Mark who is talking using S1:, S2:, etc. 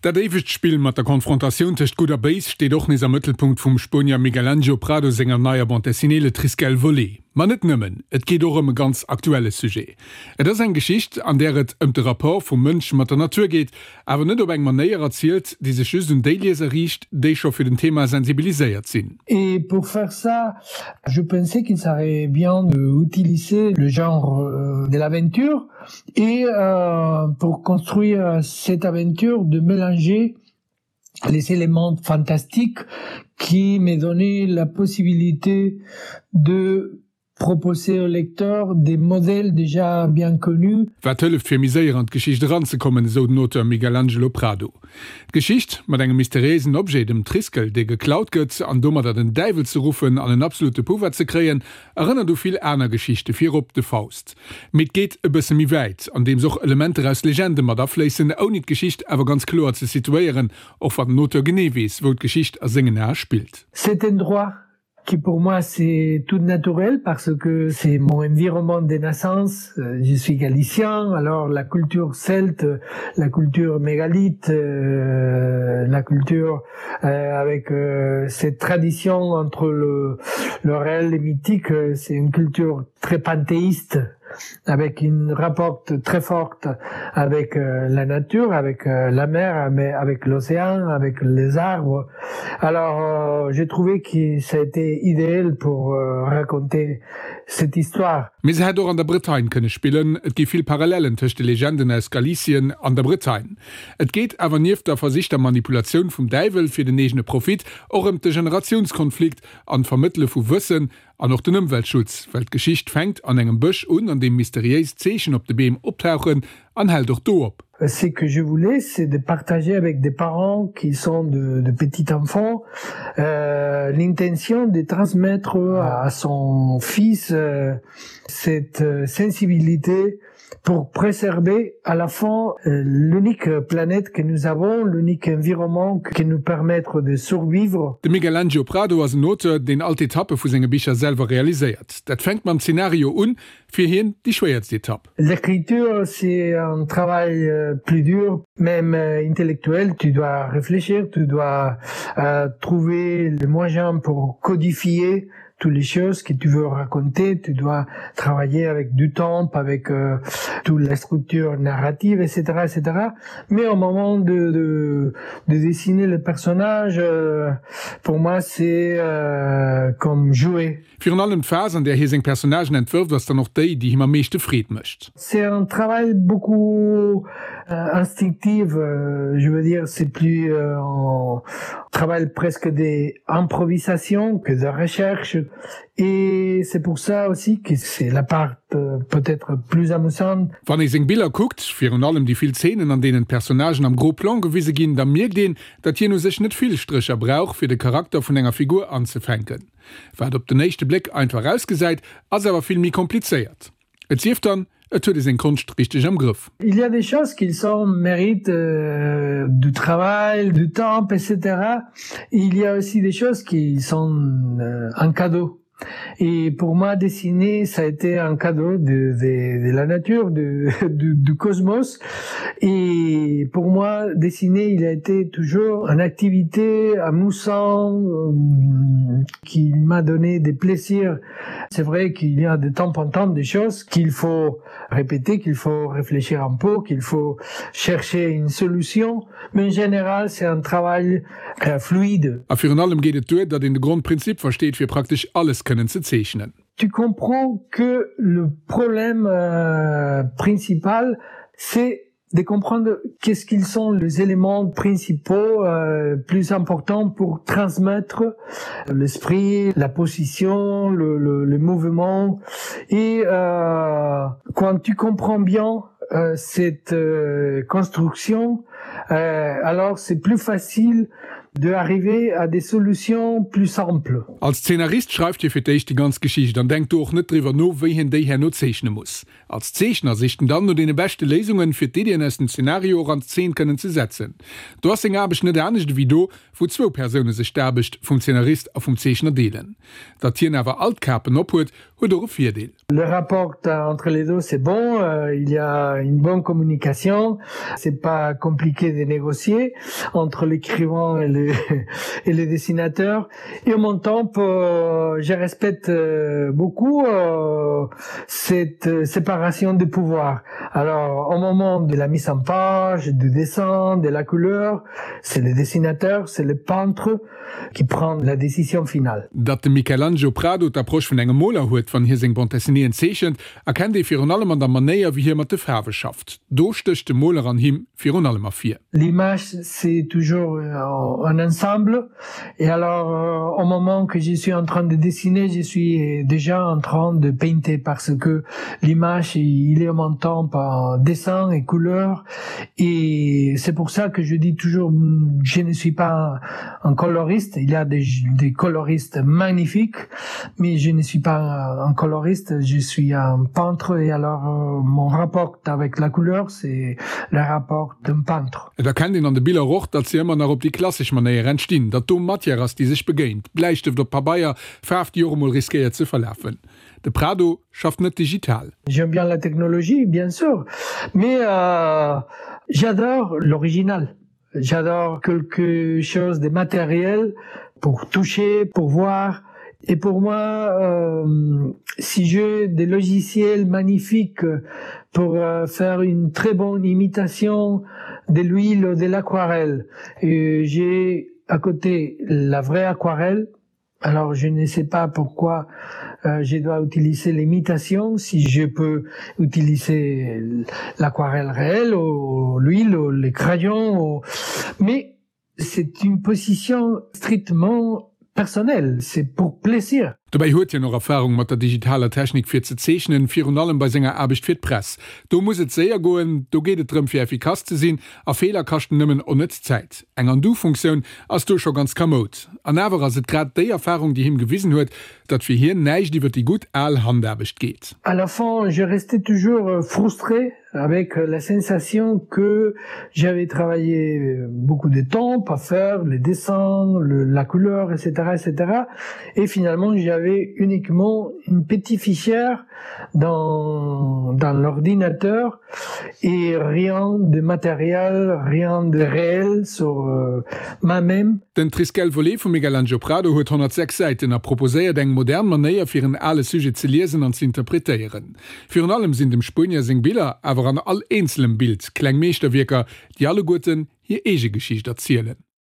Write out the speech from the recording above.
S1: Dat éiwegt Spill mat der Konfrontatioun tëscht Gutt a Béis steet och nees am Mëttelpunkt vum Spuenier Miguel Ángel Prado senger neier Bande dessinée Le Triskel volé. Ma net nëmmen, et geet och ëm e ganz aktuelle Sujet. Et ass eng Geschicht, an där et ëm de Rapport vum Mënsch mat der Natur geet, awer net op eng Manéier erzielt, déi sech just un déi Lieser riicht, déi scho fir den Thema sensibiliséiert sinn.
S2: Et pour faire ça, je pensais qu'il serait bien d'utiliser le genre de l'aventure et euh, pour construire cette aventure de mélanger les éléments fantastiques qui me donnaient la possibilité de proposer au lecteur des modèles déjà bien connus.
S1: Wat hëlleft fir méi séier an d'Geschicht eranzekommen, esou den Auteur Miguel Angelo Prado. D'Geschicht, mat engem mysteriéisen Objet, dem Triskel, dee geklaut gëtt, an domadder den Däiwel ze ruffen an en absolute Pouvoir ze kréien, erënnert u vill aner Geschichte, virop de Faust. Mee et geet e bësse méi wäit, andeems och Elementer aus Legende mat afléissen, ouni d'Geschicht awer ganz kloer ze situéieren, och wann den Auteur genee weess, wou d'Geschicht a sengen Ae spillt.
S2: Cet endroit qui pour moi c'est tout naturel parce que c'est mon environnement de naissance je suis galicien alors la culture celte la culture mégalith euh, la culture euh, avec euh, cette tradition entre le le réel et mythique c'est une culture très panthéiste avec une rapporte très forte avec euh, la nature avec euh, la mer mais avec l'océan avec les arbres alors euh, j'ai trouvé que ça a été idéal pour euh, raconter cette histoire
S1: Mee se hätt och an der Bretagne kënne spillen, et gi vill Parallellen tëscht de Legenden aus Galicien an der Bretagne. Et geet awer nieft der versichter Manipulatioun vum Däiwel fir den eegene Profit och ëm de Generatiounskonflikt an d'Vermëttele vu Wëssen An och den Ëmweltschutz, well d'Geschicht fänkt an engem Bësch un, an deem mysteriéis Zeechen op de Beem optauchen, an hält och do op.
S2: Ce que je voulais, c'est de partager avec des parents qui sont de, de petits enfants euh, l'intention de transmettre à son fils euh, cette euh, sensibilité pour préserver à la fin euh, l'unique planète que nous avons, l'unique environnement qui nous permettre de survivre.
S1: De Miguel Angel Prado ass en Auteur, deen all d'Etappe vu senge Bicher selwer realiséiert. Dat fänkt mam Zenario un, fir hien déi schwéierst Etapp.
S2: L'écriture c'est un travail euh, plus dur, même euh, intellectuel, tu dois réfléchir, tu dois euh, trouver le moyen pour codifier toutes les choses que tu veux raconter, tu dois travailler avec du temps, avec euh, toute la structure narrative, etc., etc. Mais au moment de, de, de dessiner le personnage, euh, pour moi c'est euh, comme jouer.
S1: Virun allem d'Phas, an där hie seng Personnagen entwërft, ass dann och déi, déi him am meeschte Freed mécht.
S2: C'est un travail beaucoup euh, instinctif, euh, je veux dire c'est plus euh, un travail presque d'improvisation que de recherche et c'est pour ça aussi que c'est la part euh, peut-être plus amusante.
S1: Wann ee seng Biller kuckt, virun allem déi vill Zeenen, an deenen d'Personnagen am Gros Plan gewise ginn, da mierkt een, datt hien u sech net vill Strécher brauch, fir de Charakter vun enger Figur anzefänken. Wat op den éischte Bléck einfach ausgesäit, ass awer vill méi komplizéiert. Et sief dann, et huet ee seng Konscht richteg am Grëff.
S2: Il y a des choses qui sont méritent euh, du travail, du temps, etc. Il y a aussi des choses qui sont euh, un cadeau. Et pour moi, dessiner, ça a été un cadeau de, de, de la nature, de, du, du cosmos. Et pour moi, dessiner, il a été toujours une activité amusant euh, qui m'a donné des plaisirs. C'est vrai qu'il y a de temps en temps des choses qu'il faut répéter, qu'il faut réfléchir un peu, qu'il faut chercher une solution, mais en général c'est un travail euh, fluide.
S1: A virun allem geet et duer, datt een de Grondprinzip versteet, fir praktesch alles kënnen ze zeechnen.
S2: Tu comprends que le problème euh, principal, c'est de comprendre qu'est-ce qu'ils sont les éléments principaux euh, plus importants pour transmettre l'esprit, la position, le, le, le mouvement et euh, quand tu comprends bien euh, cette euh, construction, euh, alors c'est plus facile. De arriver à des solutions plus simples.
S1: Als Zeenarist schreift hie fir d'éischt déi ganz Geschicht an denkt do och net driwwer no, wéi hien déi herno zeechne muss. Als Zeechner sicht en dann no deene beschte Léisungen, fir d'Iddien aus dem Zenario och an Zeen kënnen ze setzen. Do ass seng Aarbecht net anescht ewéi do, wou zwou Persoune sech d'Aarbecht vum Zeenarist a vum Zeechner deelen. Datt hien awer all d'Kapen ophuet, huet och e Virdeel.
S2: Le rapport entre les deux c'est bon, euh, il y a une bonne communication, c'est pas compliqué de négocier entre l'écrivain et le, et le dessinateur. Et en même temps, euh, je respecte euh, beaucoup euh, cette séparation de pouvoir. Alors au moment de la mise en page, du dessin, de la couleur, c'est le dessinateur, c'est le peintre qui prend la décision finale.
S1: Datt de Michelangelo Prado d'Approche vun engem Moler huet, wann hie seng Bande dessinéeën zeechent, erkennt ee virun allem an der Manéier, wéi hie mat de Faarwe schafft. Do stécht de Moler an him virun allem ervir.
S2: L'image, c'est toujours un ensemble et alors au moment que je suis en train de dessiner, je suis déjà en train de painter parce que l'image, il est en même temps par dessin et couleur et c'est pour ça que je dis toujours je ne suis pas un coloriste il y a des, des coloristes magnifiques mais je ne suis pas un coloriste je suis un peintre et alors euh, mon rapport avec la couleur c'est le rapport d'un peintre
S1: Et erkennt een an de Biller och, datt se ëmmer nach op déi klassesch Manéier entstinn, datt do Matière ass, déi sech begéint, Bläistëft op Pabeier, Faarf, déi och emol riskéiert ze verlafen. De Prado schafft net digital.
S2: J'aime bien la technologie, bien sûr, mais euh, j'adore l'original. J'adore quelque chose de matériel pour toucher, pour voir. Et pour moi, euh, si j'ai des logiciels magnifiques pour euh, faire une très bonne imitation de l'huile ou de l'aquarelle, j'ai à côté la vraie aquarelle, Alors je ne sais pas pourquoi euh, je dois utiliser l'imitation si je peux utiliser l'aquarelle réelle ou l'huile ou les crayons ou... mais c'est une position strictement personnelle, c'est pour plaisir.
S1: Dobäi huet hien och Erfarung mat der digitaler Technik fir ze zeechnen, virun allem bei senger Aarbecht fir d'Press. Do muss et séier goen, do geet et drëm fir effikass ze sinn a Feeler kaschten nëmmen onnëtz Zäit. Eng Undo-Funktioun ass do scho ganz kamoud. An awer ass et grad déi Erfarung, déi him gewisen huet, datt fir hien näischt iwwer déi gutt al Handaarbecht geet.
S2: À la fin, je restais toujours frustré avec la sensation que j'avais travaillé beaucoup de temps à faire les dessins, le, la couleur, etc., etc. Et finalement, j'avais uniquement une petite fichière dans, dans l'ordinateur et rien de matériel, rien de réel sur euh, moi-même.
S1: Den Triskel Volé vum Miguel-Angel Prado huet 106 Säiten a proposéiert eng modern Manéier fir en ale Sujet ze liesen an ze interpretéieren. Virun allem sinn dem Spuenier seng Biller awer an all eenzelem Bild kleng Meeschterwierker, déi alleguerten hir eege Geschicht erzielen.